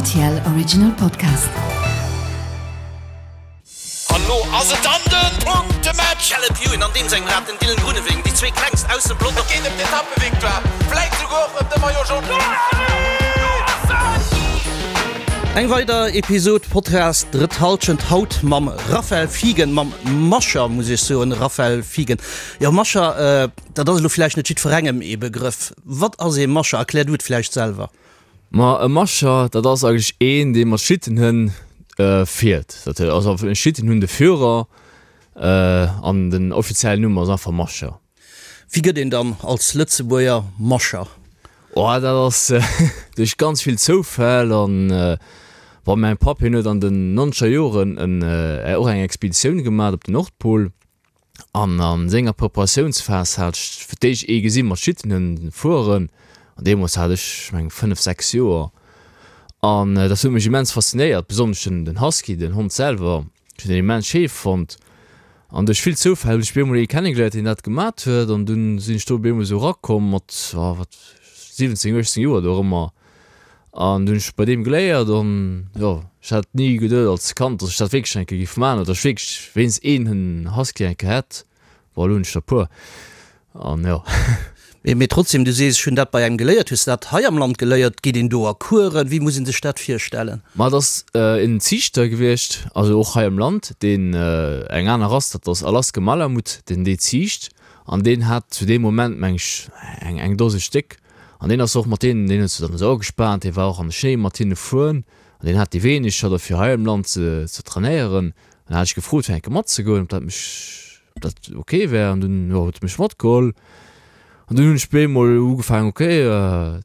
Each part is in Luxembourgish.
RTL Original Podcast. An lo ass et dann den Punktematch! Caleb Ewan an deem sengem Rad den Dylan Groenewegen, déi zwee klengst aus dem Pelotong. Et geet ëm d'Etappevictoire, vläit souguer och ëm de Maillot Jaune. Eng weider Episod Podcast Drëtt Halschent, haut mam Raphael Fiegen, mam Mascher muss ech soen, Raphael Fiegen. Jo Mascher, dat ass elo vläicht net jiddwerengem ee Begrëff. Wat ass ee Mascher? Erklär du et vläicht selwer. Ma e Mascher, dat ass eigentlech een, dee mat Schlittenhënn fiert. Dat ass einfach e Schlittenhunn, de Führer, an den offiziellen Numm ass einfach Mascher. Wéi gëtt een dann als Lëtzebuerger Mascher? Oh, dat ass duerch ganz vill Zoufäll an bon, mäin Papp, hien huet an den nonzeger Joren och eng Expeditioun gemat op den Nordpol. An a senger Preparatiounsphas hat ech fir d'éischt ee gesi mat Schlittenhënn fueren. An deemools hat ech, ech mengen, 5, 6 Joer. An dat huet mech immens faszinéiert, besonnesch den, den Husky, den Hond selwer. Ech hunn deen immens schéi fonnt. An duerch vill Zoufäll hunn ech op eemol ee kennegeléiert, deen dat gemat huet. An dunn sinn ech do op eemol esou erakomm mat, oh wat, 17, 18 Joer dorëmmer. An du hunn ech bei deem geléiert an jo, ech hat ni geduet als Kand, datt ech dat wierklech eng Kéier géif maachen oder datt ech wierklech wéinst een Husky eng Kéier hätt. Bon, elo hunn ech der e puer an jo. Mee trotzdem, du sees, ech hunn dat bei engem geléiert. Hues de dat hei am Land geléiert? Geet een do a Coursen? Wéi muss ee sech dat virstellen? Ma et ass en Ziichter gewiescht, also och hei am Land, deen eng aner Rass, dat ass Alaska Malamut, deen déi ziicht an deen hat zu deem Moment, meng ech, eng Dose Stéck. An deen ass och mat deenen, deen huet se dann esou agespaant, dee war och an de Schnéi mat hinne fueren an deen hat déi wéineg scho derfir hei am Land ze ze trainéieren. An da hat ech gefrot fir eng Kéier matzegoen, ob dat mech, ob dat ok wär an dunn, jo, huet e mech matgeholl. An dunn hunn ech bemol ugefaangen, ok,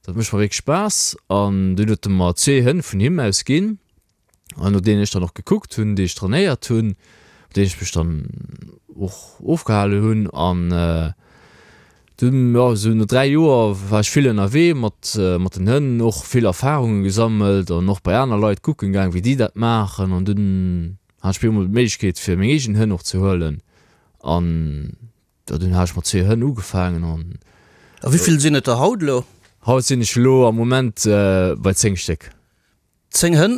dat mécht mer wierklech Spaass. An dunn huet e mer zwee Hënn vun him aus ginn. An no deenen ech dann och gekuckt hunn, déi ech trainéiert hunn, mat deenen ech mech dann och ofgehale hunn. An dunn, jo, esou no 3 Joer war ech vill ënnerwee mat mat den Hënn, och vill Erfarunge gesammelt an och bei aner Leit kucken gaang, wéi déi dat maachen. An dunn hat ech op eemol d'Méiglechkeet, fir meng eegen Hënn och ze huelen. An jo, dunn hat ech mat zwee Hënn ugefaangen an. A wéi vill sinn et der haut elo? Haut sinn ech elo am Moment bei 10 Stéck. 10 Hënn,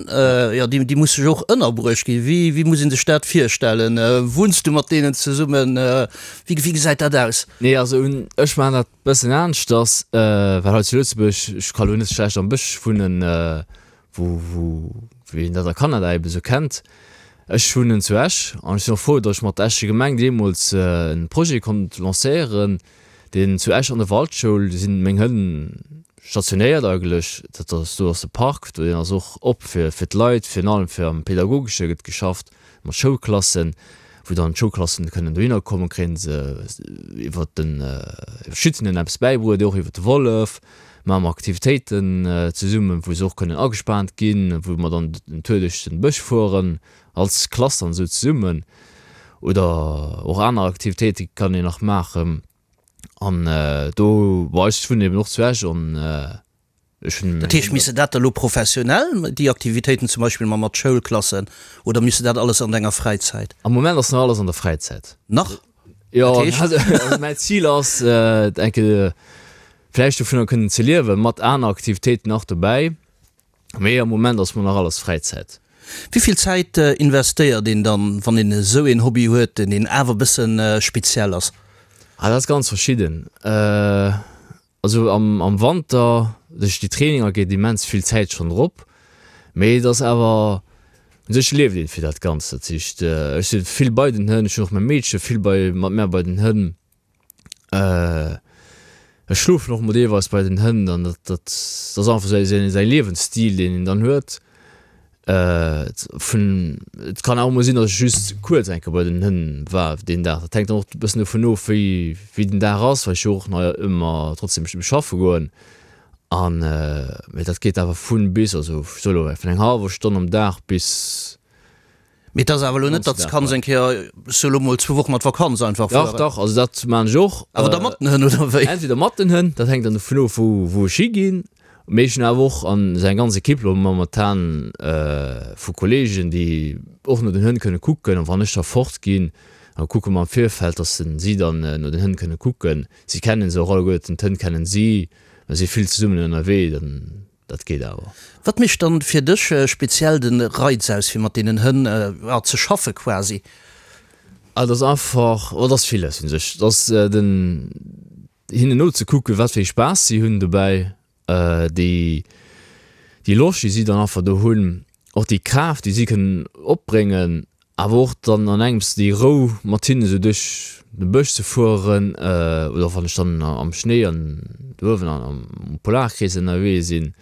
jo, déi, déi musse jo och ënnerbruecht ginn. Wéi, wéi muss ee sech dat virstellen? Wunns du mat deenen zesummen? Wéi, wéi gesäit dat aus? Nee, also un, ech maachen dat bëssen aneschters, well hei zu Lëtzebuerg, ech ka lo net schlecht am Bësch wunnen, wou, wou, wéi een dat a Kanada ebe sou kennt. Ech wunnen zu Esch an ech sinn och frou, datt ech mat der Escher Gemeng deemools e Projet konnt lancéieren, deen zu Esch an der Waldschoul sinn meng Hënn stationéiert eigentlech. Dat ass, do ass de Park, do deen ass och op fir fir d'Leit, virun allem fir am Pedagogesche gëtt geschafft mat Schoulklassen, wou dann d'Schoulklassen kënnen dohinner kommen, kréien se iwwert den iwwer d'Schützen eppes bäibruet, och iwwer de Wollef maache mer Aktivitéiten zesummen, wou se och kënnen agespaant ginn, wou mer dann den Tour duerch den Bësch fueren als Klass dann esou zesummen oder och aner Aktivitéite kann een nach maachen an do, bon ech wunnen eben och zu Esch an ech hunn. Dat heescht, misst de dat da lo professionell, déi Aktivitéiten zum Beispill ma mat Schoulklassen, oder misst de dat alles an denger Fräizäit? Am Moment ass nach alles an der Fräizäit. Nach? Jo, also mäin Zil ass eng Kéier vläicht dovunner kënnen ze liewen, mat aner Aktivitéiten nach dobäi. Mee am Moment ass mer nach alles Fräizäit. Wéi vill Zäit investéiert een dann, wann een esou een Hobby huet, deen awer e bësse speziell ass? Ah, dat ass ganz verschidden. Also am am Wanter duerch déi Traininger geet immens vill Zäit schonn drop. Mee et ass awer, u sech lieft een fir dat Ganzt. Dat heescht, ech si vill bei den Hënn, ech hunn och mäi Meedche vill bei mat mär bei den Hënn. Ech schlofen och mol deelweis bei den Hënn an dat dat ass einfach säi säi säi Liewensstil deen een dann huet. Vun et kann awer mol sinn, datt ech just kuerz eng Kéier bei den Hënn war deen Dag. Dat hänkt dann och e bëssen dovun of wéi wéi den Dag ass, well ech jo och nach ëmmer trotzdem schaffe goen an mee dat geet awer vun bis, also ech soe lo vun eng hallwer Stonn am Dag bis Mee et ass awer elo net, datt s kanns eng Kéier, ech soe lo mol, zwou Wochen an d'Vakanz einfach fueren. Dach, dach, also dat maan ech och. Awer da mat den Hënn, oder wéi? Entweder mat den Hënn, dat hänkt dann dovun of, wou, wou ech higinn. Mee ech hunn awer och an esou eng ganz Equipe lo momentan vu Kollegen, déi och no den Hënn kënne kucken. An wann ech da fort ginn, da kucke mer am Virfeld, datt si dann no den Hënn kënne kucken. Si kennen se och alleguerten, d'Hënn kennen si, mer si vill zesummen ënnerwee, dann. Dat geet awer. Wat mécht dann fir dech speziell den Reiz aus fir mat deenen Hënn ze schaffe quasi? Ah et ass einfach, oh et ass villes un sech. Et ass den hinnen nozekucken wat fir ee Spaass si hunn dobäi, déi déi Loscht déi si dann einfach do hunn, och déi Kraaft déi si kënnen opbréngen, awer och dann an engems déi Rou mat hinnen esou duerch de Bësch ze fueren oder wann ech dann am Schnéi an do uewen am Polarkrees ënnerwee sinn.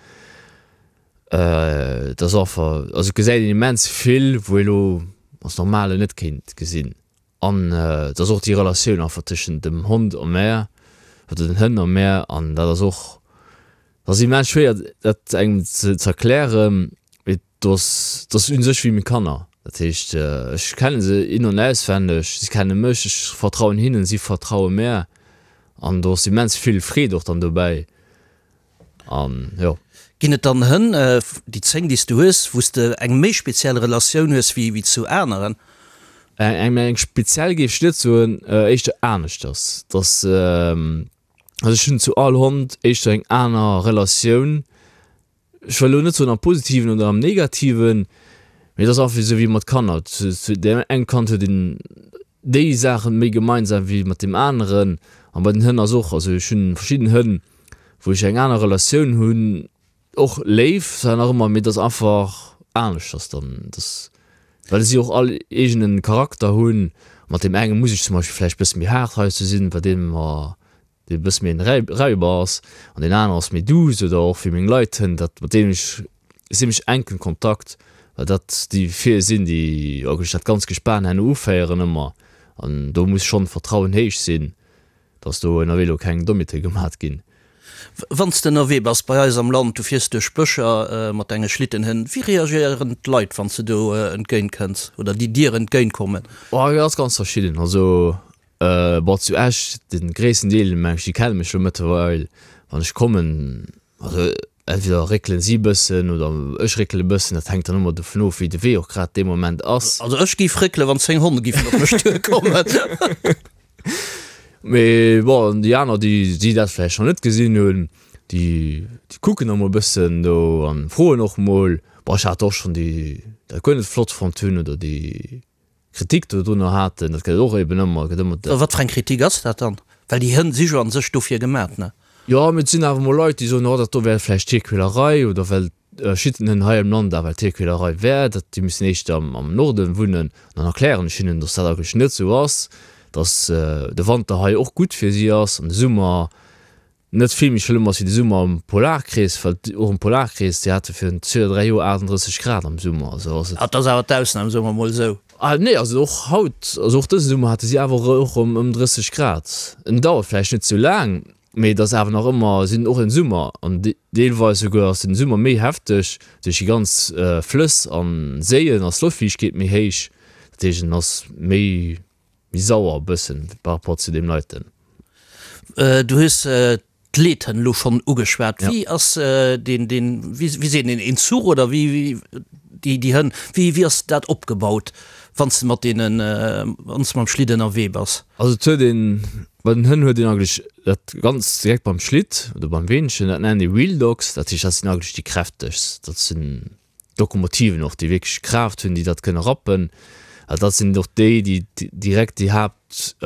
Et ass einfach, also et gesäit een immens vill wou ee lo als Normalen net kéint gesinn. An et ass och déi Relatioun einfach tëschent dem Hond a mär oder den Hënn a mär an dat ass och, dat ass immens schwéier dat engem ze erklären, mee do ass, dat ass u sech wéi meng Kanner. Dat heescht ech kenne se in an auswenneg, si kenne mech, ech vertrauen hinnen, si vertraue mär an do ass immens vill Freed och dann dobäi. An jo. Ginn et dann Hënn, déi 10 déi s du hues, wou s de eng méi speziell Relatioun hues wéi zu aneren? Eng eng speziell géif ech net soen, éischter aneschters. Dass, also ech hunn zu all Hond éischter eng aner Relatioun. Ech wëll elo net soen am Positiven oder am Negativen, mee et ass einfach esou wéi mat Kanner, zu deem engem Kand huet een déi Saachen méi gemeinsam wéi mat deem aneren. An bei den Hënn ass och, also ech hunn verschidden Hënn, wou ech eng aner Relatioun hunn, och léif zwar nach ëmmer, mee et ass einfach aneschters dann, dass, well si och all eegenen Charakter hunn. Mat deem enge muss ech zum Beispill vläicht bësse méi haart heiansdo sinn, bei deem mer dee e bësse méi en Räuber ass an deen anere ass méi douce oder och wéi meng Leit hunn, dat mat deenen ech zimmlech enken Kontakt, well dat déi vir sinn, déi eigentlech dat ganz Gespan herno uféieren ëmmer an do muss schonn d'Vertrauen héich sinn, dass do ënnerwee elo keng Dommheete gemat ginn. Wann s de ënnerwee bass bei eis am Land, du fiers duerch Bëscher mat denge Schlittenhënn, wéi reagéieren d'Leit, wann s de do entgéint kënns oder déi dir entgéint kommen? Oh, dat ass ganz verschidden. Also Bon zu Esch, den gréissten Deel meng ech déi kenne mech lo mëttlerweil, wann ech kommen, also entweder réckelen si bëssen oder ech réckele bëssen, dat hänkt dann ëmmer dovun of wéi de Wee och grad dee Moment ass. Also ech géif réckelen wann 10 Honn giffen op mech duer kommen. Mee bon déi aner déi déi dat vläicht nach net gesinn hunn, déi déi kucken da mol bëssen do an froen och mol. Bon ech hat och schonn déi dat guer net flott fonnt hunn oder déi Kritik dodrunner haten, dat gëtt et och eben ëmmer, gëtt ëmmer. Wat fir eng Kritik ass dat dann? Well déi Hënn si jo an sech dofir gemat, ne? Jo, mee et sinn awer mol Leit, déi soen, oh dat do wär vläicht Tierquälerei oder well Schittenhënn hei am Land awer Tierquälerei wär, dat déi müssen éischter am Norden wunnen. An dann erklären ech hinnen, dass dat eigentlech net esou ass, dass de Wanter hei och gutt fir si ass an de Summer Net vill méi schlëmm ass wéi de Summer am Polarkrees, well och am Polarkrees, déi hate virun zwee oder 3 Joer 38 Grad am Summer, also ass et. Dat ass awer d'Ausnam, soe mer mol esou. Ah nee, also och haut, also och dëse Summer hate si awer och erëm ëm 30 Grad. En dauert vläicht net sou laang, mee et ass awer nach ëmmer, si hunn och en Summer an deelweis souguer ass den Summer méi hefteg duerch déi ganz Flëss an Séien ass d'Loftfiichtegkeet méi héich, dat heescht en ass méi. Méi sauer e bëssen par rapport zu deem leiten. Du hues d'Leethënn elo schonn ugeschwat. Wéi ass deen, deen, wéi seet een, een Zuch oder wéi, déi, déi Hënn, wéi, wéi ass dat opgebaut, wann s de mat deenen, wann s de mam Schlitt ënnerwee bass? Also et huet een, bei den Hënn huet een eigentlech dat ganz direkt beim Schlitt oder beim Weenchen, dat nennen déi Wheel Dogs, dat heescht dat sinn eigentlech déi kräftegst, dat sinn D'Lokomotiven och, déi wierklech Kraaft hunn, déi dat kënne rappen. Also dat sinn och déi, déi direkt déi Haaptkraaft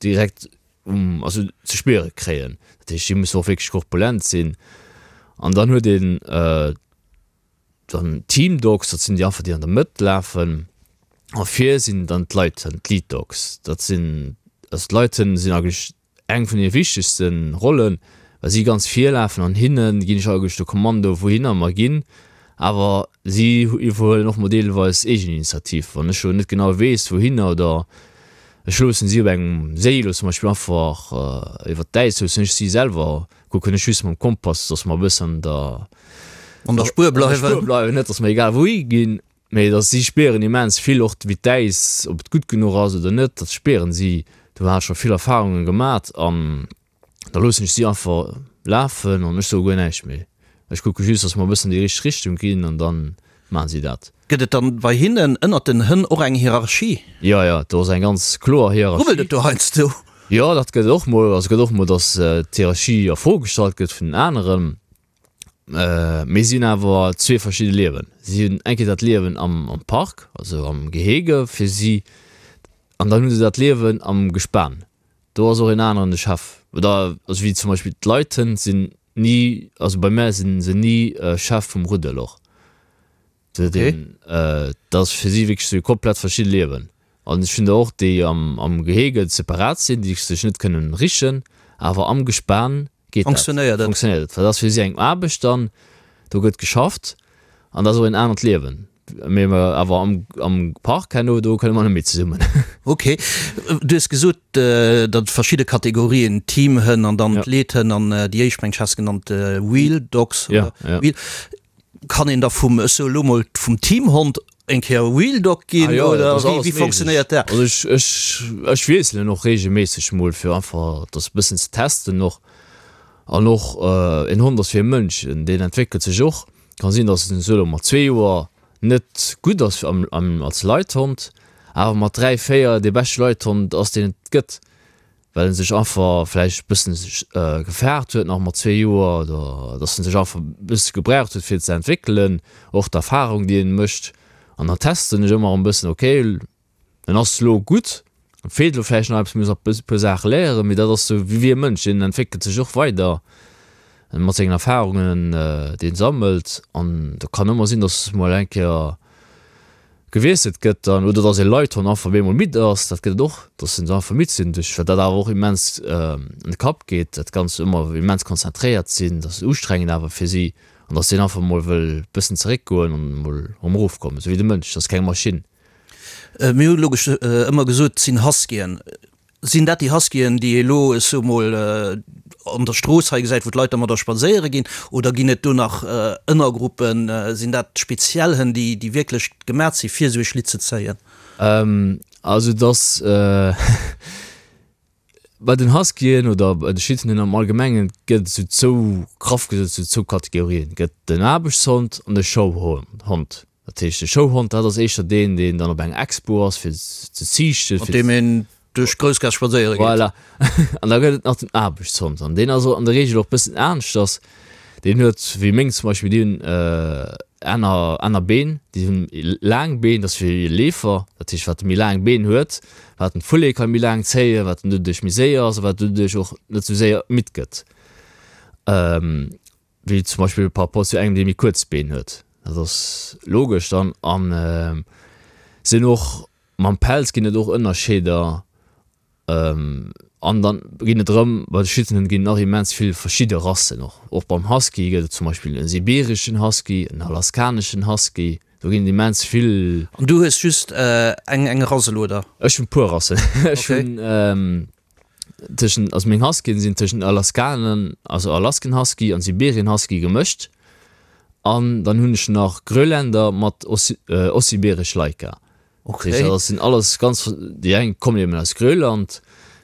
direkt um, also ze spiere kréien. Dat heescht, déi mussen och wierklech korpulent sinn. An dann huet een dann Team Dogs, dat sinn déi einfach, déi an der Mëtt lafen. A vir sinn dann d'Leithënn, d'Lead Dogs. Dat sinn, also d'Leithënn sinn eigentlech Eng vun hir wichtegste Rollen, well si ganz vir lafen an hinne ginn ech eigentlech de Kommando wouhinner mer ginn, awer si iwwerhuelen och mol deelweis Eegeninitiativ, wann ech elo net genau weess wouhinner oder ech loossen si op engem Séi elo zum Beispill einfach iwwert d'Äis loossen ech si selwer kucken ech just mam Kompass, dass mer e bëssen an der An der Spuer bleiwen. Bleiwen, net dass mer egal wouhi ginn. Mee dass si spieren immens vill, och wéi d'Äis, ob et gutt genuch ass oder net, dat spieren si. Do hat ech scho vill Erfarunge gemat an da loossen ech si einfach lafen an ech soe guer näischt méi. Ech kucke just, dass mer e bëssen an déi richteg Richtung ginn an da maachen si dat. Gëtt et dann bei hinnen ënnert den Hënn och eng Hierarchie? Jo, jo, do ass eng ganz kloer Hierarchie. Rubbelt et do heiansdo? Jo, dat gëtt et och mol. Also gëtt och mol, dass d'Hierarchie a Fro gestallt gëtt vun den aneren. Mee si hunn awer zwee verschidde Liewen. Si hunn eng Kéier dat Liewen am am Park, also am Gehege fir si, an dann hu se dat Liewen am Gespan. Do ass och een aneren de Chef. Oder also wéi zum Beispill d'Leithënn sinn ni, also bei mär sinn se ni Chef vum Ruddel och. Dat ass fir si wierklech zwee komplett verschidde Liewen. An ech hunn der och, déi am Gehege separat sinn, déi sech net kënnen richen, awer am Gespan geet dat. Fonctionnéiert et. Fonctionnéiert et. Well dat ass fir si eng Aarbecht dann, do gëtt geschafft an dat ass och en anert Liewen. Mee awer am Park herno, do kënne mer net méi zesummen. Ok. Du hues gesot, datt et verschidde Kategorien, Teamhënn an dann d'Leethënn an déi éischt, meng ech, has genannt Wheel Dogs oder Wheel. Kann een da vum, ech soe lo mol, vum Teamhond eng Kéier Wheel Dog ginn Ah jo, oder dat ass wéi, alles wéi méiglech. fonctionnéiert dat? Also ech, ech, ech wiesselen och reegelméisseg mol fir einfach dat e bëssen ze testen och. An och en Hond ass wéi e Mënsch, deen entwéckelt sech och. Kann sinn, datt en sou elo mat zwee Joer net gutt ass am, am, als Leithond, awer mat dräi, véier dee beschte Leithond ass, deen et gëtt. well en sech einfach vläicht e bëssen gefaart huet nach mat zwee Joer oder dass en sech einfach e bësse gebraucht huet fir ze entwéckelen, och d'Erfahrung déi en mécht an dann testen ech ëmmer erëm e bëssen, ok en ass elo gutt, em feelt elo vläicht nach eppes, muss nach e puer Saache léieren, mee dat ass sou wéi e Mënsch, deen entwéckelt sech och weider mat sengen Erfahrungen déi en sammelt an do kann ëmmer sinn, dass mol eng Kéier gewiesselt gëtt dann, oder dass ee Leithond einfach op eemol midd ass, dat gëtt et och, dass se einfach midd sinn duerch, wat dat awer och immens an de Kapp geet, dat Ganzt ëmmer immens konzentréiert sinn, dat ass ustrengend awer fir si an dass deen einfach mol wëll bëssen zeréckgoen an mol erëm erofkommen, esou wéi de Mënsch, dat ass keng Maschinn. Mir hu logesch ëmmer gesot, et sinn Huskyen. Sinn dat déi Huskyen, déi ee lo, ech soe mol, an der Strooss hei gesäit, wou d'Leit dermadder spadséiere ginn? Oder ginn et do nach Ënnergruppen? Sinn dat speziell Hënn, déi, déi wierklech gemat si fir esou ee Schlitt ze zéien? Also et ass bei den Huskyen oder bei de Schlittenhënn am Allgemengen gëtt et esou zwou, graff gesot, esou zwou Kategorien. Et gëtt den Aarbechtshond an de Showhond. Dat heescht, de Showhond, dat ass éischter deen, deen dann op enger Expo ass, fir ze ziichten. Mat deem een duerch d'Groussgaass spadséiere geet. Voilà. An da gëtt et nach den Aarbechtshond. An deen ass an der Reegel och e bëssen aneschters. Deen huet, wéi meng zum Beispill, déi hunn aner, aner Been. Déi hunn laang Been, dat ass fir Leefer. Dat heescht, wat e méi laang Been huet, wat en d'Foulée ka méi laang zéien, wat en doduerch méi séier ass a wat doduerch och net esou séier midd gëtt. Wéi zum Beispill par rapport zu engem, dee méi kuerz Been huet. Dat ass logesch dann. An sinn och mam Pelz ginn et och Ënnerscheeder. An dann ginn et erëm, bei de Schützenhënn ginn et nach immens vill verschidde Rassen och. Och beim Husky gëtt et zum Beispill e sibireschen Husky, en alaskaneschen Husky. Do ginn et immens vill. An du hues just eng eng Rass elo, oder? Ech hunn e puer Rassen. Ech hunn. Tëschent, also meng Huskyen sinn tëschent Alaskanen, also Alaskan Husky an Siberian Husky gemëscht. An dann hunn ech nach Grönländer mat Ossiberesch Laika. Okay. Dat sinn alles ganz, déi eng kommen eben aus Grönland,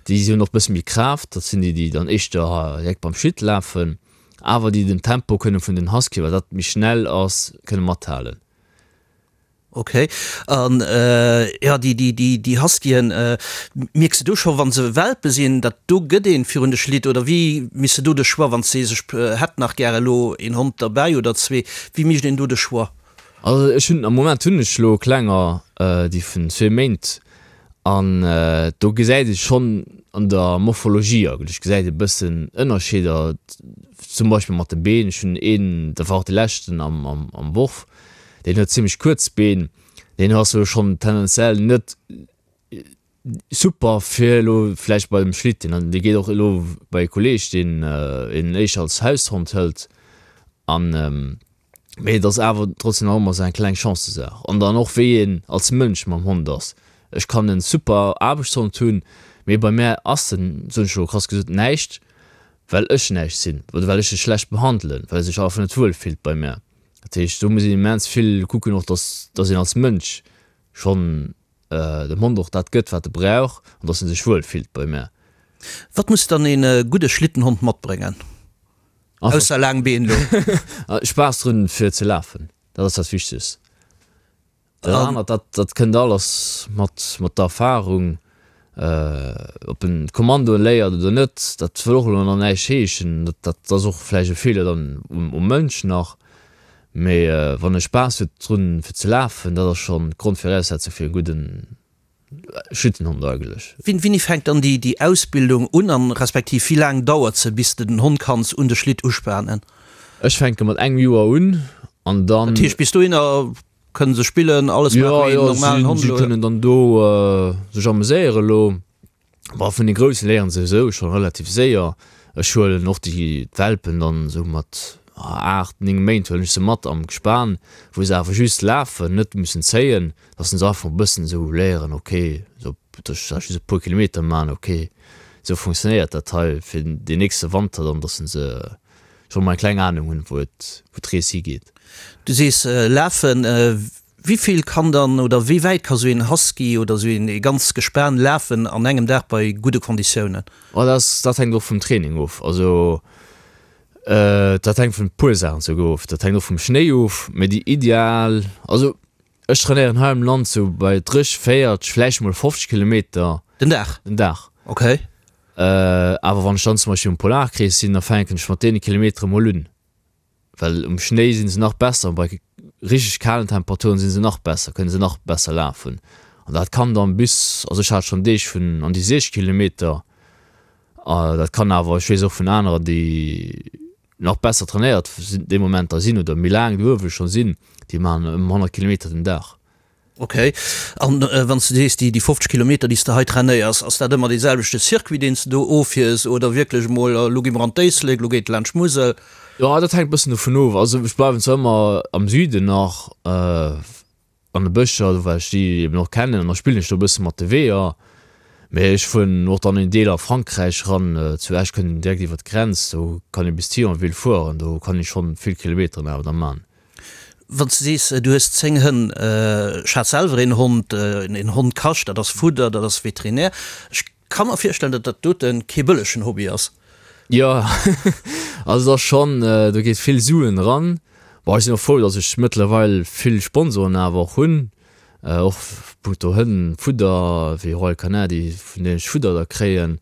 déi hunn och bësse méi Kraaft, dat sinn déi, déi dann éischter direkt beim Schlitt lafen, awer déi den Tempo kënne vun den Husky, well dat méi schnell ass, kënne mathalen. Ok, an jo déi déi déi déi Huskyen, mierks de do scho wann se Welpe sinn, datt do gëtt een virun de Schlitt oder wéi misst de do de Choix, wann s de sees ech hätt nach gär elo een Hond derbäi oder zwee, wéi mécht een do de Choix? Also ech hunn am Moment hunn ech elo klenger déi vun zwee Méint an do gesäit ee schonn an der Morphologie eigentlech gesäit ee bëssen Ënnerscheeder, zum Beispill mat de Been. Ech hunn een, dat war och de leschten am am Worf, Deen huet zimmlech kuerz Been, deen ass elo schonn tendenziell net super fir elo vläicht bei dem Schlitten an dee geet och elo bei e Kolleeg, deen en éischter als Haushond hëlt an mee et ass awer trotzdem nach ëmmer esou eng kleng Chancesaach an dann och wéi een als Mënsch mam Hond ass. Ech kann en super Aarbechtshond hunn, mee bei mär ass en, soen ech elo krass gesot, näischt, well ech näischt sinn oder well ech e schlecht behandelen, well e sech einfach net wuel fillt bei mär. Dat heescht, do muss een immens vill kucken och, dass, dass een als Mënsch schonn dem Hond och dat gëtt, wat e brauch an dass en sech wuel fillt bei mär. Wat muss dann een gudde Schlittenhond matbréngen, ausser laang Been elo? Spaass drun fir ze lafen, dat ass dat Wichtegst. Dat anert, dat, dat kënnt alles mat, mat der Erfahrung. Ob en d'Kommandoen léiert oder net, dat wëll och elo nach näischt heeschen. Dat ass och vläicht e Feeler dann um Mënsch nach. Mee wann e Spaass huet drun fir ze lafen, dat ass schonn d'Grondviraussetzung fir e gudden Schlittenhond eigentlech. Wéini fänkt dann déi Ausbildung un an respektiv wéi laang dauert se bis de den Hond kanns un de Schlitt uspanen? Ech fänke mat engem Joer un an dann. Dat heescht bis dohinner kënnen se spillen, alles maachen wéi en normalen Hond elo? Jo, jo, si kënnen dann do sech ameséieren elo. Bon, vun de Grousse léieren se esou scho relativ séier. Ech huelen och déi d'Welpen dann esou mat 8, 9 Méint huelen ech se mat am Gespan, wou se awer just lafen, net mussen zéien, dass se einfach e bëssen esou léieren, ok, esou dass ech just e puer Kilometer maachen, ok, esou funktionéiert dat hei fir deen nächste Wanter dann, dass se scho mol eng kleng Anung hunn, wou et, wou d'Rees higeet. Du sees lafen. Wéi vill kann dann oder wéi wäit ka sou een Husky oder sou een ee ganz Gespan lafen an engem Dag bei gudde Konditiounen? Oh dat ass, dat hänkt och vum Training of. Also dat hänkt vun e puer Saachen souguer of. Dat hänkt och vum Schnéi of. Mee déi ideal, also ech trainéieren hei am Land sou bei 30, 40, vläicht mol 50 Kilometer. Den Dag? Den Dag. Okay. Awer wann ech dann zum Beispill um Polarkrees sinn, da fänken ech mat deene Kilometere mol un. Well um Schnéi sinn se nach besser an bei richteg kalen Temperaturen sinn se nach besser, kënne se nach besser lafen. An dat kann dann bis, also ech hat schonn Deeg vun an déi 60 Kilometer, dat kann awer, ech weess och vun anerer déi nach besser trainéiert sinn dee Moment da sinn oder méi laang do uewe scho sinn, déi maachen ëm 100 Kilometer den Dag. Ok. An wann s de sees, déi 50 Kilometer, déi s de hei trainéiers, ass dat ëmmer dee selwechte Circuit, deen s de do offiers oder wierklech emol, elo gi mer an d'Éislek, elo geet et laanscht d'Musel? Jo, dat hänkt e bëssen dovun of. Also ech bleiwen zwar ëmmer am Süden nach, an de Bëscher, do well ech déi eben och kennen an da spillen ech do e bësse mat de Weeër. Mee ech fueren och dann en Deel a Frankräich eran, zu Esch kënnt een direkt iwwer d'Grenz, do kann ee bis Thionville fueren, do kann ee schonn vill Kilometeren awer da man. Wann s de sees, du hues 10 Hënn, ech hat selwer een Hond, een Hond kascht, dat ass Fudder, dat ass Veterinär. Ech ka mer virstellen, datt dat dote kee bëllegen Hobby ass. Jo, also et ass schonn, do geet vill Suen eran. Bon, ech sinn och frou, datt ech mëttlerweil vill Sponsoren awer och hunn, och punkto Hënn, Fudder, wéi Royal Canin, déi vun deenen ech Fudder da kréien,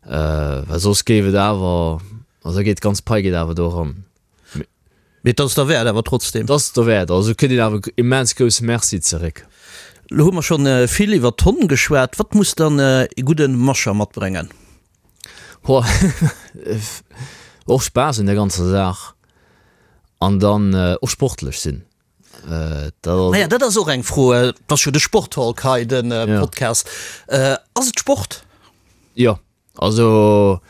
well soss géif et awer, also da geet d'ganz Pai geet awer do eran. Mee et ass derwäert awer trotzdem. Et ass derwäert, also kritt een awer immens grousse Merci zeréck. Lo hu mer schonn vill iwwer d'Honn geschwat. Wat muss dann ee gudde Musher matbréngen? Ho, och Spaass un der ganzer Saach an dann och sportlech sinn. Naja, dat ass och eng Fro. Et ass jo de Sporttalk hei, de Podcast. Ass et Sport? Jo, Also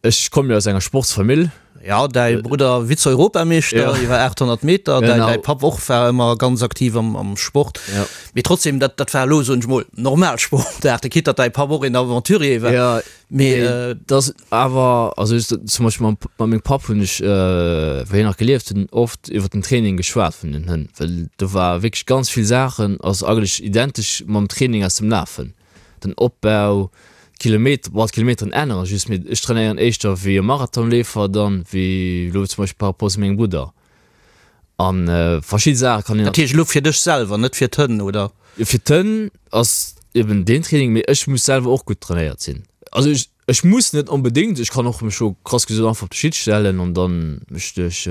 ech komme jo aus enger Sportsfamill. Ja, däi Brudder Vize-Europameeschter iwwer 800 Meter, däi däi Papp och war ëmmer ganz aktiv am am Sport. Mee trotzdem, dat dat war elo, soen ech mol, normal Sportaarte, quitte datt däi Papp och een Aventurier war. Ja, mee dat ass awer, also ech zum Beispill mam mat mengem Papp hunn ech, wéi hien nach gelieft hunn, oft iwwer den Training geschwat vun den Hënn, well do war wierklech ganz vill Saachen ass eigentlech identesch mam Training aus dem Lafen. Den Opbau, d'Kilometer, bon d'Kilometeren änneren just, mee ech trainéieren éischter wéi e Marathonleefer dann wéi elo zum Beispill par rapport zu mengem Brudder an verschidde Saache kann een. Dat heescht elo fir dech selwer, net fir d'Hënn, oder? Fir d'Hënn ass eben deen Training, mee ech muss selwer och gutt trainéiert sinn. Also ech. Ech muss net onbedéngt, ech kann och mech jo krass gesot einfach op de Schitt stellen an dann mech duerch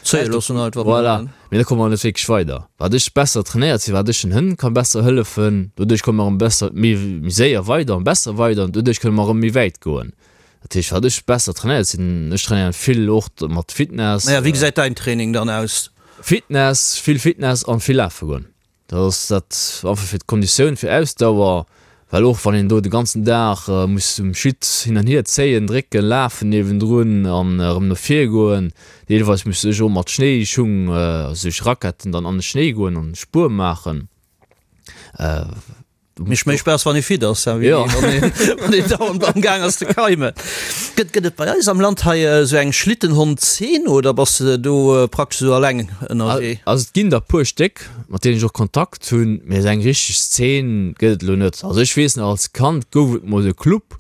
Zéie loossen einfach. Voilà, mee da komme mer net wierklech weider. Wat ech besser trainéiert sinn, wat ech den Hënn ka besser hëllefen, doduerch komme mer erëm besser, méi méi séier weider an besser weider an doduerch kënne mer erëm méi wäit goen. Dat heescht, wat ech besser trainéiert sinn, ech trainéieren vill och mat Fitness. Naja, wéi gesäit däin Training dann aus? Fitness, vill Fitness an vill lafe goen. Dat ass dat einfach fir d'Konditioun, fir Ausdauer, well och wann een do de ganzen Dag muss um Schitt hin an hier zéien, drécken, lafen niewendrun an erëm no vir goen, deelweis muss ech och mat Schnéischung, also duerch Raquetten dann an de Schnéi goen an Spuer maachen. Mécht méi Spaass wann ee fit ass, wéi wann een dauernd am Gaang ass ze keimen. Gëtt gëtt et bei eis am Land hei esou eng Schlittenhond-Zeen oder bass de do praktesch esou alleng ënnerwee? Also et ginn der puer Stéck, mat deenen ech och Kontakt hunn, mee esou eng richteg Zeen gëtt et elo net. Also ech weess nach, als Kand gouf et mol e Club,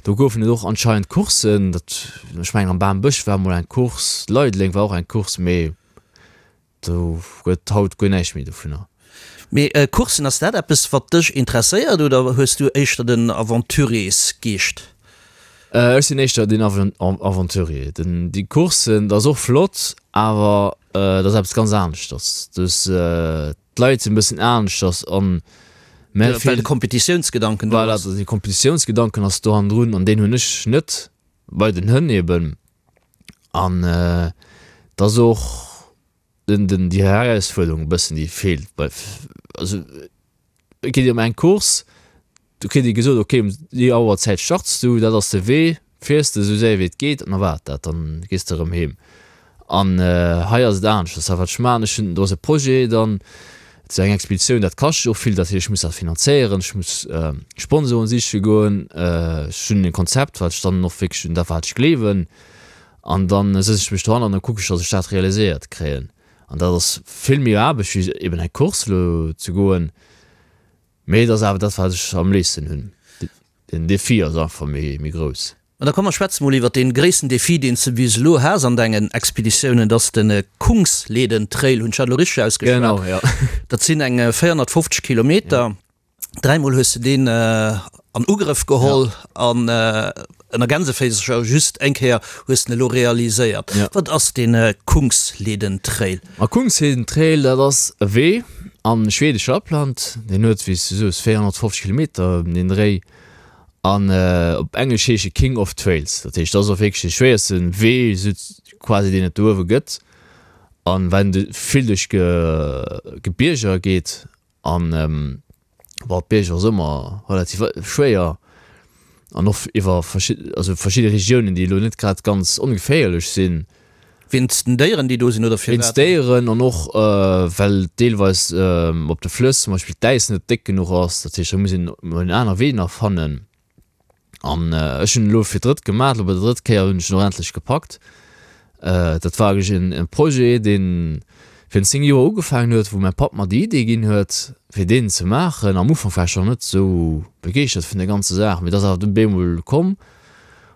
do goufen et och anscheinend Courssen, dat, ech mengen am Bambësch war mol eng Course, Leideleng war och eng Course, mee Do gëtt haut guer näischt méi dovunner. Mee Courssen, ass dat eppes wat dech interesséiert oder hues du éischter den Aventuriers-Geescht? Ech sinn éischter den Aventurier. Den, déi Courssen, dat ass och flott, awer dat ass eppes ganz aneschters. Dus d'Leit sinn e bëssen aneschters an mä Well de Kompetitiounsgedanken do ass. Voilà, de Kompetitiounsgedanken ass do hannendrun an deen hunn ech net bei den Hënn eben. An et ass och den, den, déi Herausfuerderung e bëssen, déi feelt bei, also et geet ëm eng Course, Do kritt ee gesot, ok, um déi Auerzäit starts du, dat ass de Wee, fiers de esou séier wéi et geet an da war et dat, dann gees de erëm heem. An hei ass et aneschters. A wat ech maachen, ech hunn, do ass e Projet dann, et ass eng Expeditioun, dat kascht och vill, dat heescht, ech muss dat finanzéieren, ech muss Sponsoren siche goen, ech hunn e Konzept, wat ech dann och wierklech, un dat wat ech gleewen, an dann sëtz ech mech dohan an da kucke ech, datt ech dat realiséiert kréien. An dat ass vill méi Aarbecht wéi eben eng Course elo ze goen. Mee et ass awer dat wat ech am léifsten hunn. Den Defi ass einfach méi grouss. An da komm mer schwätze mol iwwert dee gréissten Defi deen s de bis elo has an dengen Expeditiounen, dat ass de Kungsleden Trail, hunn ech dat elo richteg ausgeschwat? Genau, jo. Dat sinn eng 450 Kilometer. Dräimol hues de deen an Ugrëff geholl an ënner Gänseféisercher just eng Kéier hues de en elo realiséiert. Wat ass dee Kungsleden Trail? Ma Kungsleden Trail, dat ass e Wee am schwedesche Lappland. Deen huet, wéi s du soos, 450 Kilometer ëm den Dréi an op Englesch heescht e King of Trails. Dat heescht, dat ass och wierklech dee schwéierste Wee sou quasi, deen et do uewe gëtt. An well en vill duerch Gebierger geet an Bon, d'Bierg ass ëmmer relativ schwéier an och iwwer verschidde, also verschidde Regiounen, déi elo net grad ganz ongeféierlech sinn. Wéinst den Déieren, déi do sinn, oder firwat? Wéinst Déieren an och well deelweis op de Flëss zum Beispill d'Äis net déck genuch ass. Dat heescht, da muss een emol en aner Wee nach fannen. An ech hunn elo fir d'drëtt gemaach, elo bei der drëtt Kéier hunn ech en och endlech gepackt. Dat war eigentlech en e Projet, dee virun 10 Joer ugefaangen huet, wou mäi Papp mer déi Idee ginn huet, fir deen ze maachen. Am Ufank war ech nach net esou begeeschtert vun der ganzer Saach, mee et ass awer dunn bemol komm.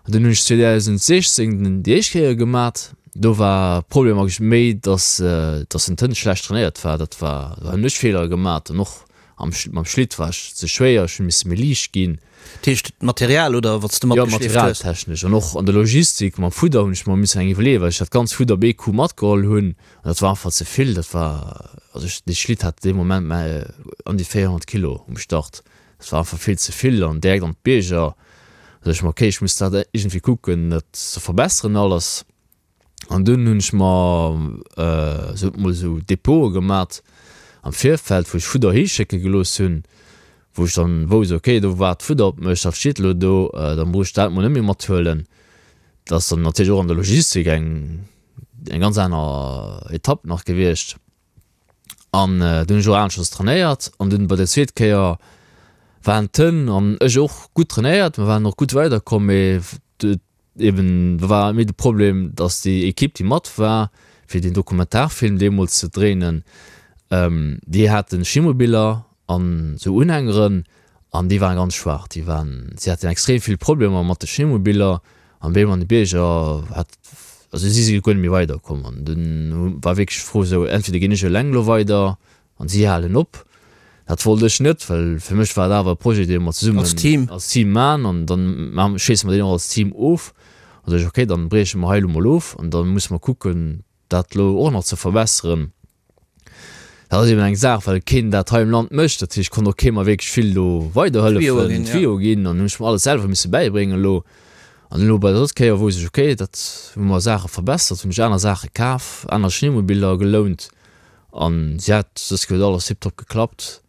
An dunn hunn ech 2016 déi éischt Kéier gemat. Do war Problem eigentlech méi, dass dass den Tënt schlecht trainéiert war. Dat war, do hunn ech Feeler gemat an och Am mam Schlitt war ech ze schwéier, ech hu misse méi liicht ginn. Dat heescht d'Material oder wat s de matgeschleeft hues? Jo, materialtechnesch an och an der Logistik mam Fudder hunn ech mer missen eng iwwerleeën, well ech dat ganz Fudder op ee Coup matgeholl hunn an dat war einfach ze vill. Dat war, also ech, dee Schlitt hat dee Moment mä an déi 400 Kilo um Start. Dat war einfach vill ze vill an direkt an d'Bierger. Da sot ech mer, okay, ech muss dat iergendwéi kucken, dat ze verbesseren alles. An dunn hunn ech mer sot mol esou Depote gemat am Virfeld, wou ech Fudder hischécke gelooss hunn, wou ech dann wousst, ok, do waart Fudder op mech, dat steet elo do, da muss ech dat mol net méi mathuelen. Dat ass dann natierlech och an der Logistik eng eng ganz aner Etapp nach gewiescht. An dunn hunn ech och aneschters trainéiert an dunn bei der zweet Kéier waren d'Hënn an ech och gutt trainéiert, mer waren och gutt weiderkomm, mee Eben do war méi de Problem, datt déi Ekipp, déi mat war, fir deen Dokumentarfilm deemools ze dréinen, déi hate Schimobiller an esou Unhängeren an déi waren ganz schwaach. Déi waren, si haten extrem vill Problemer mat de Schimobiller an béim an de Bierger hat, also si si guer net méi weiderkomm. An dunn war wierklech d'Fro esou, entweder ginn ech eleng elo weider An si halen op. Dat wollt ech net, well fir mech war et awer e Projet, dee mer zesummen Als Team. als Team maachen an dann schléisse mer deen och als Team of. An da sot ech, okay, dann brieche mer hei elo mol of an da musse mer kucken, dat elo och nach ze verbesseren. Dat ass eben eng Saach, well keen dat hei am Land mécht. Dat heescht, konnt och kee mer wierklech vill do weiderhëllefen, Tuyau ginn an hunn ech mer alles selwer misse bäibréngen elo. An elo bei der drëtt Kéier wousst ech, okay, dat hu mer Saache verbessert, hunn ech aner Saache kaf, aner Schneemobiller gelount An si hat dës huet alles tiptop geklappt.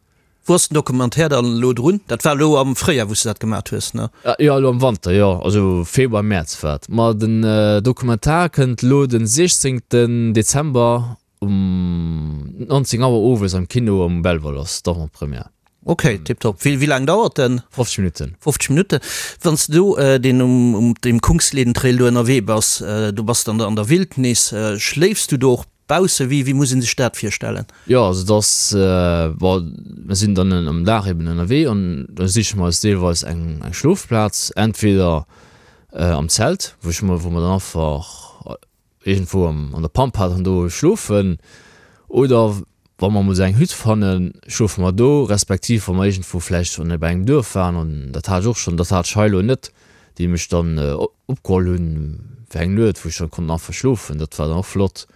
Wou ass den Documentaire dann elo drun? Dat war elo am Fréijar wou s de dat gemat hues, ne? Jo, elo am Wanter, jo, also Februar, Mäerz war et. Ma den Documentaire kënnt elo den 16 Dezember um 19 Auer owes am Kino am Belval ass d'Avant-Première. Ok, tiptop. Wéi laang dauert den? 50 Minutten. 50 Minutten. Wann s de do deen um deem Kungsleden-Trail do ënnerwee bass, do bass de an der Wildnis, schléifs du do och Bausse, wéi, wéi muss een sech dat virstellen? Jo, also et ass, bon, mir sinn dann am Dag eben ënnerwee an da siche mer eis deelweis eng, eng Schlofplaz, entweder am Zelt, wou ech mer, wou mer dann einfach iergendwou am, an der Pampa dann do schlofen oder. Wa mer emol esou eng Hütt fannen, schlofe mer do, respektiv wa mer iergendwou vläicht schonn bei engem Duerf waren, an dat hat ech och schonn, dat hat ech hei elo net, déi mech dann opgeholl hunn fir eng Nuet, wou ech dann konnt einfach schlofen, dat war dann och flott.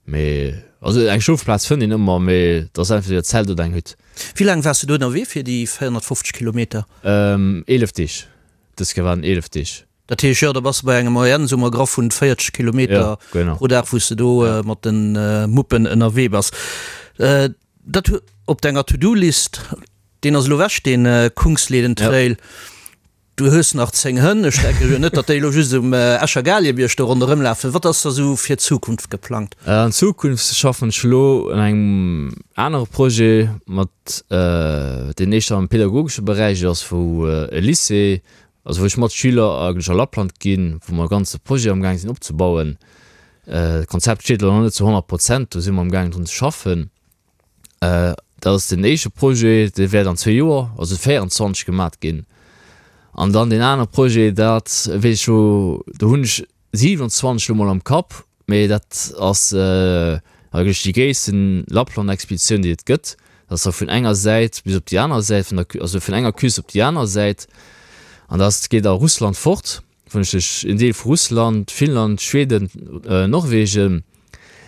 Mee also eng Schlofplaz fënnt een ëmmer, mee et ass entweder Zelt oder eng Hütt. Wéi laang waars de do ënnerwee fir déi 450 Kilometer? 11 Deeg, dës Kéier waren et 11 Deeg. Dat heescht, jo, da bass de bei enger Moyenne, soe mer graff, vun 40 Kilometer pro Dag, wou s de do mat de Muppen ënnerwee bass. Dat op denger To-Do-List, deen ass elo ewech, dee Kungsleden Trail. Du hues nach 10 Hënn. Ech denke jo net, datt déi elo just um Escher Galiebierg do ronderëm lafen. Wat ass da sou fir d'Zukunft geplangt? An Zukunft schaffen ech elo un engem anere Projet mat, deen éischter am pedagogesche Beräich ass, wou e Lycée Also wou ech mat Schüler eigentlech a Lappland ginn, wou mer e ganze Projet amgaang sinn opzebauen. D'Konzept steet elo nach net zu 100 Prozent, do si mer amgaangen drun ze schaffen. Dat ass den éischte Projet, dee wäert an zwee Joer, also 24 gemat ginn. An dann deen anere Projet, dat weess ech elo, do hunn ech 27 elo mol am Kapp, Mee dat ass eigentlech déi gréissten Lappland-Expeditioun, déi et gëtt. Dat ass da vun enger Säit bis op déi aner Säit vun der, also vun enger Küst op déi aner Säit. An dat geet a Russland fort, vun duerch en Deel vu Russland, Finnland, Schweden, Norwegen.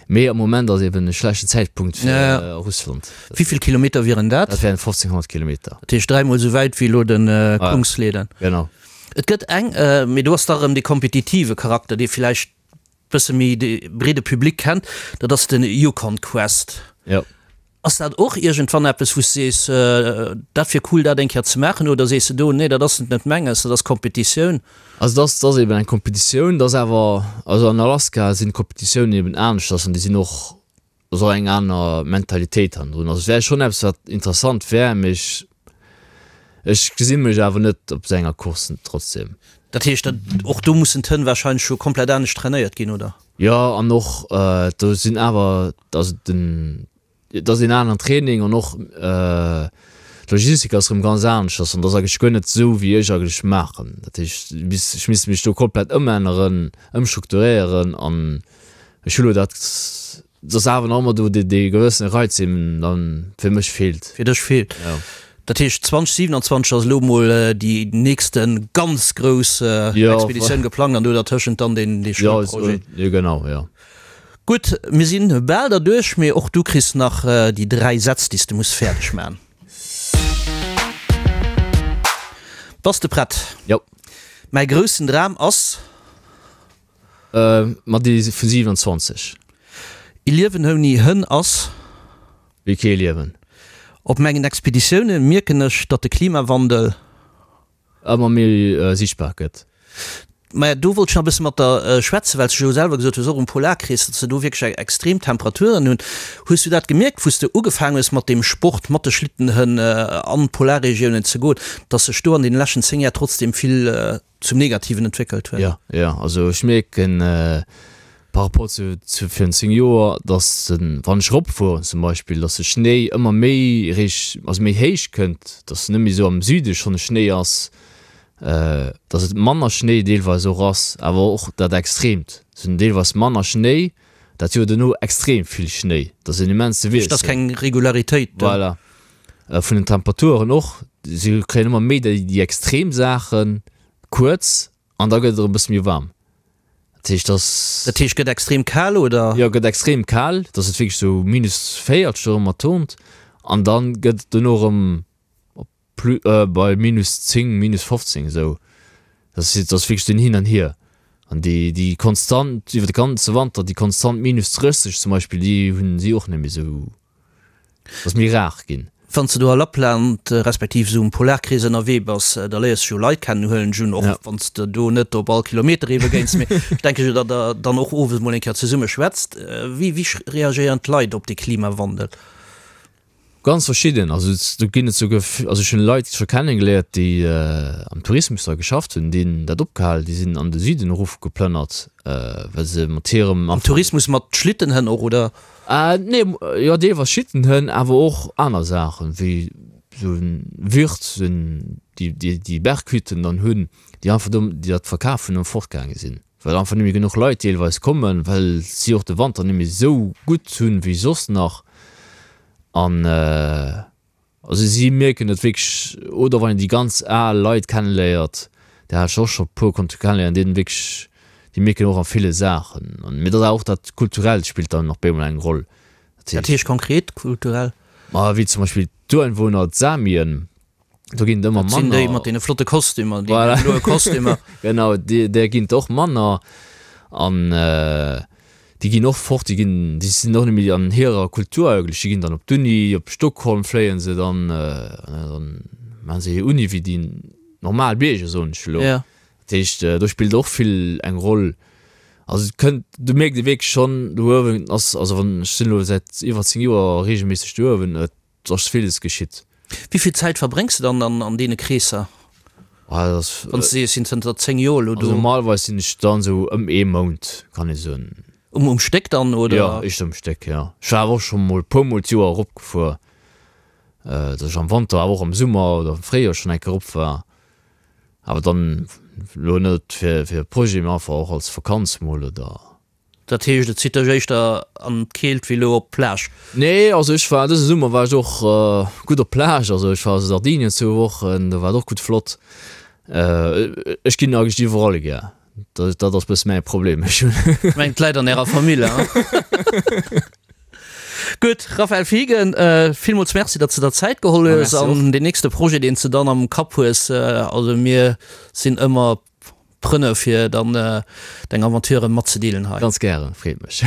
Mee am Moment ass eben e schlechten Zäitpunkt fir Russland. Wéi vill Kilometer wieren dat? Dat wären 1500 Kilometer. Dat heescht dräimol esou wäit wéi elo de Kungsleden. Genau. Et gëtt eng, mee do ass da erëm dee kompetitive Charakter, dee vläicht bësse méi de breede Public kennt, dat ass de Yukon Quest. Jo. Ass dat och iergendwann eppes, wou s de sees, dat wier cool, dat eng Kéier ze maachen, oder sees de do, nee, dat ass net menges, dat ass Kompetitioun? Also dat ass, dat ass eben eng Kompetitioun, dat ass awer, also an Alaska sinn d'Kompetitiounen eben aneschters an déi sinn och ass och eng aner Mentalitéit hannendrun. Also et wär schonn eppes wat interessant wär, mee ech ech gesi mech awer net op esou enger Course trotzdem. Dat heescht dat och do mussen d'Hënn wahrscheinlech jo komplett anescht trainéiert ginn, oder? Jo, an och do sinn awer, also den et ass een aneren Training an och d'Logistik ass erëm ganz aneschters an et ass eigentlech guer net esou wéi ech eigentlech maachen. Dat heescht ech misst mech do komplett ëmänneren, ëmstrukturéieren an Ech hu lo dat, et ass awer nach ëmmer do dee, dee gewëssene Reiz, deen dann fir mech feelt. Fir dech feelt. Jo. Dat heescht 2027 ass elo mol déi nächste ganz grouss Expeditioun geplangt an do dertëschent dann deen, dee Schoulprojet. Jo, genau, jo. Gutt, mir sinn bal derduerch, mee och du kriss nach déi 3 Sätz, déi s de muss fäerdeg maachen. Bass de prett? Jo. Mäi groussen Dram ass. Ma déi vu 27. E Liewen ouni Hënn ass. Wéi kee Liewen. Op mengen Expeditioune mierken ech, datt de Klimawandel. Ëmmer méi sichtbar gëtt. Maja, do wollt ech nach e bësse mat der schwätzen, well s de jo selwer gesot hues, och um Polarkrees, datt se do wierklech extrem Temperaturen hunn. Hues du dat gemierkt, wou s de ugefaangen hues mat deem Sport, mat de Schlittenhënn an d'Polarregiounen ze goen, datt sech do an deene leschten 10 Jar trotzdem vill zum Negativen entwéckelt huet. Jo, jo, also ech mierken par rapport zu zu virun 10 Joer, dass den, wann ech eropfueren zum Beispill, dass de Schnéi ëmmer méi réich, also méi héich kënnt, dass net méi esou am Süde schonn e Schnéi ass, dass et manner Schnéi deelweis och ass, awer och dat Extreemt, se hunn deelweis manner Schnéi, dat Joer duerno extrem vill Schnéi, dat ass en immense Wiessel. Dass keng Regularitéit do. Voilà. Vun den Temperaturen och, si kréien ëmmer méi déi extrem Saachen kuerz an da gëtt et erëm e bësse méi waarm. Dat heescht, dass. Dat heescht, gëtt extrem kal, oder? Jo, gëtt extrem kal, dass et wierklech sou minus 40 erëm erturnt an da gëtt et dono erëm op plus, bei minus 10, minus 15 esou. Dat ass wierklech den Hin an Hier. An déi, déi konstant iwwer de ganze Wanter, déi konstant minus 30 zum Beispill, déi hunn si och net méi esou. Ass méi rar ginn. Wann s de do a Lappland, respektiv esou um Polarkrees ënnerwee bass, da léiers de jo Leit kennen, huelen ech un, och wann s de do net op all Kilometer ee begéins. Mee ech denke jo, datt der dann och owes mol eng Kéier zesumme schwätzt. Wéi wéi reagéieren d'Leit op de Klimawandel? Ganz verschidden. Also do ginn et souguer, also ech hunn Leit scho kennengeléiert, déi am Tourismus da geschafft hunn, déi hunn dat opgehal, déi sinn an de Süden erofgeplënnert, well se mat hirem. Am Tourismus mat Schlittenhënn och, oder? Nee, jo deelweis Schittenhënn, awer och aner Saachen, wéi sou en Wirt, déi déi Berghütten dann hunn, déi einfach do, déi dat verkaf hunn an fortgaange sinn, well einfach net méi genuch Leit deelweis kommen, well si och de Wanter net méi sou gutt hunn wéi soss nach. An also si mierken et wierklech, oder wann een déi ganz al Leit kenneléiert, där hat ech och scho puer konnte kenneléieren, déi wierklech, déi mierken och a ville Saachen. An mee dat ass och dat Kulturellt spillt dann nach bemol eng Roll. Dat heescht konkret kulturell? Ma wéi zum Beispill d'Ureinwohner, d'Samien, do ginn et ëmmer manner. Dat sinn déi mat deene flotte Kostümer, déi bloe Kostümer. Genau, där ginn et och manner. An déi ginn och fort, déi ginn, déi sinn och net méi an hirer Kultur eigentlech. Déi ginn dann op d'Uni, op Stockholm fléie se dann, dann maache se hir Uni wéi déi normal Bierger, soen ech elo. Dat heescht, do spillt och vill eng Roll. Also et kënnt, do mierkt ee wierklech schonn, do uewen ass, also wann, ech sinn elo säit iwwer 10 Joer reegelméisseg do uewen, et Et ass villes geschitt. Wéi vill Zäit verbréngs de dann an deene Kreesser? Wann s de sees, ech sinn zënter 10 Joer elo do. Also normalerweis sinn ech dann esou ëm ee Mount, kann ee soen. Um Stéck dann, oder? Jo, éischter um Stéck, jo. Ech war awer och scho mol e puer mol d'Joer eropgefuer, datt ech am Wanter, awer och am Summer oder am Fréijoer schonn eng Kéier erop war. Awer dann elo net fir e Projet, mee einfach och als Vakanz mol oder. Dat heescht, et zitt dech éischter an d'Keelt wéi elo op d'Plage? Nee, also ech war dëse Summer war ech och gutt op d'Plage. Also ech war a Sardinien zwou Wochen, do war et och gutt flott. Ech ginn eigentlech iwwerall gär, dat dat ass bësse mäi Problem. Ech hunn. Ech mengen, d'Leit an ärer Famill, hein? Gutt, Raphaël Fiegen, villmools Merci, datt s de der Zäit geholl hues an deen nächste Projet, deen s de dann am Kapp hues, also mir sinn ëmmer Prënne fir dann deng Aventuren matzedeelen hei. Ganz gären, freet mech.